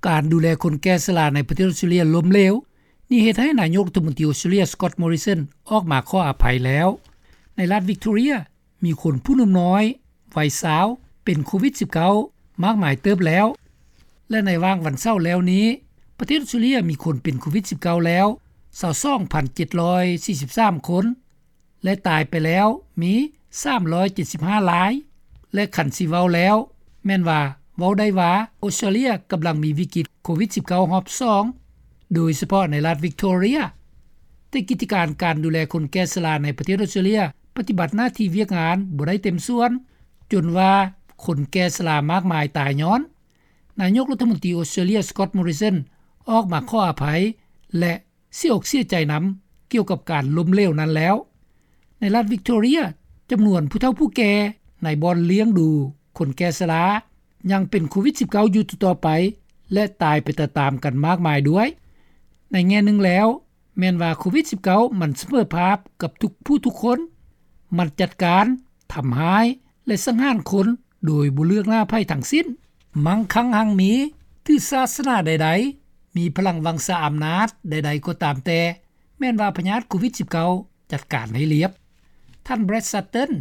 ການດູແລຄົນແກ່ຊະລາໃນປະເທດອອສເຕຣເລັຽລົ້ມເຫຼວ. ນີ້ເຮັດໃຫ້ນາຍົກລັດຖະມົນຕີອອສເຕຣເລັຽ Scott Morrison ອອກມາຂໍອະໄພແລ້ວ. ໃນລັດວິກໂຕເຣຍ ມີຄົນຜູ້ໜຸ່ມນ້ອຍ ໄວຊາວ ເປັນໂຄວິດ-19 ມາກມາຍເຕີບແລ້ວ ແລະ ໃນຫວ່າງວັນເສົາແລ້ວນີ້ ປະເທດອອສເຕຣເລັຽມີຄົນເປັນໂຄວິດ-19 ແລ້ວ 22,743 ຄົນ ແລະ ຕາຍໄປແລ້ວມີ 375 ລາຍ ແລະ ຄັນຊິເວົ້າແລ້ວ ແມ່ນວ່າເວົ້າໄດ້ວ່າ ອອສເຕຣເລັຽກຳລັງມີວິກິດໂຄວິດ-19 ຮອບສອງ ໂດຍສະເພາະໃນລັດວິກໂຕເຣຍ. ແຕ່ກິດຈະການການດູແລຄົນແກ່ຊະລາໃນປະເທດອອສເຕຣເລັຽ ປະຕິບັດໜ້າທີ່ວຽກງານບໍ່ໄດ້ເຕັມສ່ວນ ຈົນວ່າຄົນແກ່ຊະລາມາກມາຍຕາຍຍ້ອນ. ນາຍົກລັດຖະມົນຕີອອສເຕຣເລັຽ Scott Morrison ອອກມາຂໍອະໄພ ແລະ ເສຍອົກເສຍໃຈນຳກ່ຽວກັບການລົ້ມເຫຼວນັ້ນແລ້ວ. ໃນລັດວິກໂຕເຣຍ ຈຳນວນຜູ້ເຖົ້າຜູ້ແກ່ໃນບ່ອນລ້ຽງດູຄົນແກ່ຊະລາ ຍັງເປັນໂຄວິດ-19 ຢູ່ຕໍ່ໆໄປ ແລະ ຕາຍໄປຕາມໆກັນມາກມາຍດ້ວຍ. ໃນແງ່ໜຶ່ງແລ້ວ ແມ່ນວ່າໂຄວິດ-19 ມັນສະເໝີພາບກັບທຸກຜູ້ທຸກຄົນ, ມັນຈັດການ, ທຳຮ້າຍ ແລະ ສັງຫານຄົນໂດຍບໍ່ເລືອກໜ້າໃຜທັງສິ້ນ, ມັງຄັງຮັ່ງມີ, ຖືສາສະໜາໃດໆ, ມີພະລັງວັງຊາອຳນາດໃດໆກໍຕາມແຕ່, ແມ່ນວ່າພະຍາດໂຄວິດ-19 ຈັດການໃຫ້ລຽບ. ທ່ານ Brad Sutton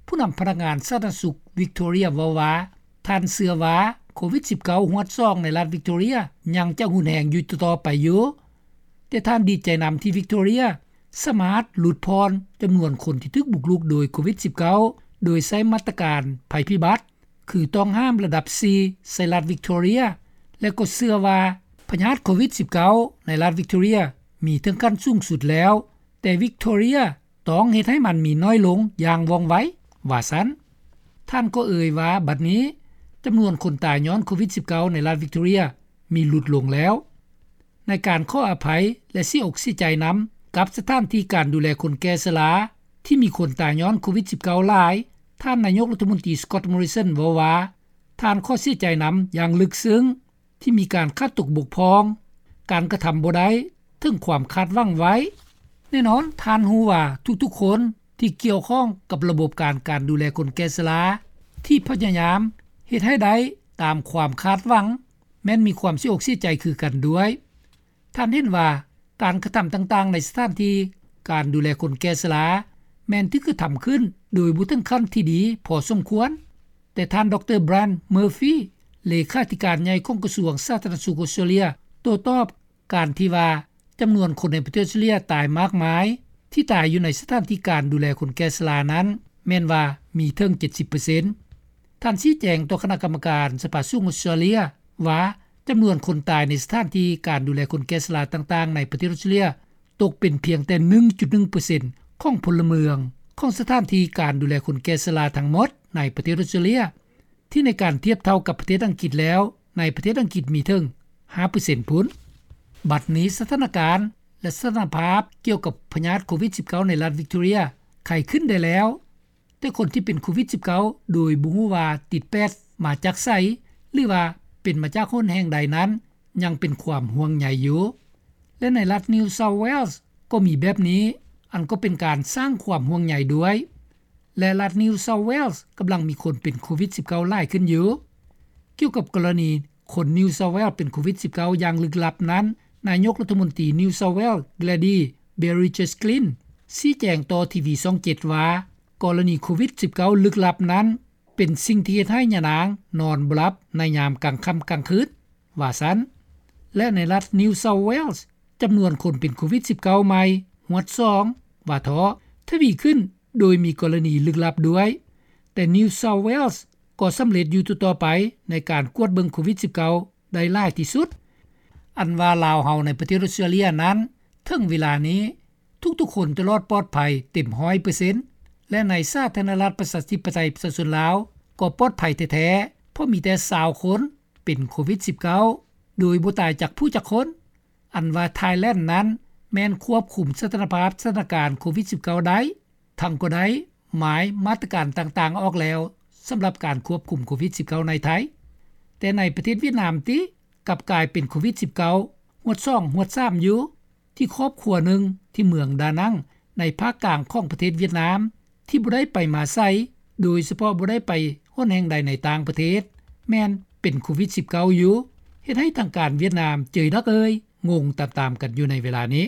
ຜູ້ນຳພະນັກງານສາທາລະນະສຸກວິກໂຕເຣຍເວົ້າວ່າ ທ່ານເຊື່ອວ່າໂຄວິດ-19 ຮວດສອງໃນລັດວິກໂຕເຣຍຍັງຈະຮຸນແຮງຢູ່ຕໍ່ໆໄປຢູ່, ແຕ່ທ່ານດີໃຈນຳທີ່ວິກໂຕເຣຍສາມາດຫຼຸດຜ່ອນຈຳນວນຄົນທີ່ຖືກບຸກລຸກໂດຍໂຄວິດ-19 ໂດຍໃຊ້ມາດຕະການໄພພິບັດ ຄືຕ້ອງຫ້າມລະດັບສີ່ໃສ່ລັດວິກໂຕເຣຍ ແລະ ກໍເຊື່ອວ່າພະຍາດໂຄວິດ-19 ໃນລັດວິກໂຕເຣຍມີເຖິງຂັ້ນສູງສຸດແລ້ວ, ແຕ່ວິກໂຕເຣຍຕ້ອງເຮັດໃຫ້ມັນມີໜ້ອຍລົງຢ່າງວ່ອງໄວ, ວ່າຊັ້ນ. ທ່ານກໍເອີ່ຍວ່າ ບັດນີ້ຈຳນວນຄົນຕາຍຍ້ອນໂຄວິດ-19 ໃນລັດວິກໂຕເຣຍມີຫຼຸດລົງແລ້ວ. ໃນການຂໍອະໄພ ແລະ ເສຍອົກເສຍໃຈນຳກັບສະຖານທີ່ການດູແລຄົນແກ່ຊະລາ ທີ່ມີຄົນຕາຍຍ້ອນໂຄວິດ-19 ຫຼາຍ, ທ່ານນາຍົກລັດຖະມົນຕີ Scott Morrison ເວົ້າວ່າ ທ່ານຂໍເສຍໃຈນຳຢ່າງເລິກເຊິ່ງ ທີ່ມີການຂາດຕົກບົກຜ່ອງ, ການກະທຳບໍ່ໄດ້ເຖິງຄວາມຄາດຫວັງໄວ້. ແນ່ນອນ, ທ່ານຮູ້ວ່າທຸກໆຄົນທີ່ກ່ຽວຂ້ອງກັບລະບົບການ ການດູແລຄົນແກ່ຊະລາ ທີ່ພະຍາຍາມເຮັດໃຫ້ໄດ້ຕາມຄວາມຄາດຫວັງ ແມ່ນມີຄວາມເສຍອົກເສຍໃຈຄືກັນດ້ວຍ. ທ່ານເຫັນວ່າການກະທຳຕ່າງໆໃນສະຖານທີ່ການດູແລຄົນແກ່ຊະລາ ແມ່ນຖືກກະທຳຂຶ້ນໂດຍບໍ່ເຖິງຂັ້ນທີ່ດີພໍສົມຄວນ, ແຕ່ທ່ານ ດຣ. Brad Murphy ເລຂາທິການໃຫຍ່ຂອງກະຊວງສາທາລະນະສຸກອອສເຕຣເລັຽ ໂຕ້ຕອບການທີ່ວ່າຈຳນວນຄົນໃນປະເທດອອສເຕຣເລັຽຕາຍມາກມາຍ ທີ່ຕາຍຢູ່ໃນສະຖານທີ່ການດູແລຄົນແກ່ຊະລານັ້ນ ແມ່ນວ່າມີເຖິງ ເຈັດສິບເປີເຊັນ. ທ່ານຊີ້ແຈງຕໍ່ຄະນະກຳມະການສະພາສູງອອສເຕຣເລັຽວ່າ ຈຳນວນຄົນຕາຍໃນສະຖານທີ່ການດູແລຄົນແກ່ຊະລາຕ່າງໆໃນປະເທດອອສເຕຣເລັຽ ຕົກເປັນພຽງແຕ່ ໜຶ່ງຈຸດໜຶ່ງເປີເຊັນ ຂອງພົນລະເມືອງຂອງສະຖານທີ່ການດູແລຄົນແກ່ຊະລາທັງໝົດໃນປະເທດອອສເຕຣເລັຽ, ທີ່ໃນການທຽບເທົ່າກັບປະເທດອັງກິດແລ້ວ ໃນປະເທດອັງກິດມີເຖິງ ຫ້າເປີເຊັນພຸ້ນ. ບັດນີ້ສະຖານະການ ແລະ ສະຖານະພາບກ່ຽວກັບພະຍາດໂຄວິດ-19 ໃນລັດວິກໂຕເຣຍໄຄຂຶ້ນໄດ້ແລ້ວ, ແຕ່ຄົນທີ່ເປັນໂຄວິດ-19 ໂດຍບໍ່ຮູ້ວ່າຕິດແປດມາຈາກໃສ ຫຼືວ່າເປັນມາຈາກຫົນແຫ່ງໃດນັ້ນ ຍັງເປັນຄວາມຫ່ວງໃຍຢູ່ ແລະ ໃນລັດ New South Wales ກໍມີແບບນີ້, ອັນກໍເປັນການສ້າງຄວາມຫ່ວງໃຍດ້ວຍ ແລະ ລັດ New South Wales ກຳລັງມີຄົນເປັນໂຄວິດ-19 ຫຼາຍຂຶ້ນຢູ່. ກ່ຽວກັບກໍລະນີຄົນ New South Wales ເປັນໂຄວິດ-19 ຢ່າງລຶກລັບນັ້ນ, ນາຍົກລັດຖະມົນຕີ New South Wales Gladys Berejiklian ຊີ້ແຈງຕໍ່ທີວີຊ່ອງເຈັດວ່າ ກໍລະນີໂຄວິດ-19 ລຶກລັບນັ້ນ ເປັນສິ່ງທີ່ເຮັດໃຫ້ຍານາງນອນບໍ່ຫຼັບໃນຍາມກາງຄ່ຳກາງຄືນ, ວ່າຊັ້ນ. ແລະ ໃນລັດ New South Wales ຈຳນວນຄົນເປັນໂຄວິດ-19 ໃໝ່ ຮວດສອງ ວ່າເທາະ ທະວີຂຶ້ນ ໂດຍມີກໍລະນີລຶກລັບດ້ວຍ, ແຕ່ New South Wales ກໍສຳເລັດຢູ່ຕໍ່ໆໄປໃນການກວດເບິ່ງໂຄວິດ-19 ໄດ້ຫຼາຍທີ່ສຸດ. ອັນວ່າລາວເຮົາໃນປະເທດອອສເຕຣເລັຽນັ້ນ ເຖິງເວລານີ້ ທຸກໆຄົນຈະລອດປອດໄພເຕັມຮ້ອຍເປີເຊັນ ແລະ ໃນສາທາລະນະລັດປະຊາທິປະໄຕປະຊາຊົນລາວກໍປອດໄພແທ້ໆ ເພາະມີແຕ່ຊາວຄົນເປັນໂຄວິດ-19 ໂດຍບໍ່ຕາຍຈັກຜູ້ຈັກຄົນ. ອັນວ່າ Thailand ນັ້ນແມ່ນຄວບຄຸມສະຖານະພາບສະຖານະການໂຄວິດ-19 ໄດ້, ທັງກໍໄດ້ໝາຍມາດຕະການຕ່າງໆອອກແລ້ວ ສຳລັບການຄວບຄຸມໂຄວິດ-19 ໃນໄທ. ແຕ່ໃນປະເທດຫວຽດນາມຕິ ກັບກາຍເປັນໂຄວິດ-19 ຮວດສອງ ຮວດສາມຢູ່ ທີ່ຄອບຄົວໜຶ່ງທີ່ເມືອງດານັງ ໃນພາກກາງຂອງປະເທດຫວຽດນາມ ທີ່ບໍ່ໄດ້ໄປມາໃສ ໂດຍສະເພາະບໍ່ໄດ້ໄປຫົນແຫ່ງໃດໃນຕ່າງປະເທດ ແມ່ນເປັນໂຄວິດ-19 ຢູ່ ເຮັດໃຫ້ທາງການຫວຽດນາມ ເຈີຍນັກເອີຍ ງົງຕາມໆກັນຢູ່ໃນເວລານີ້.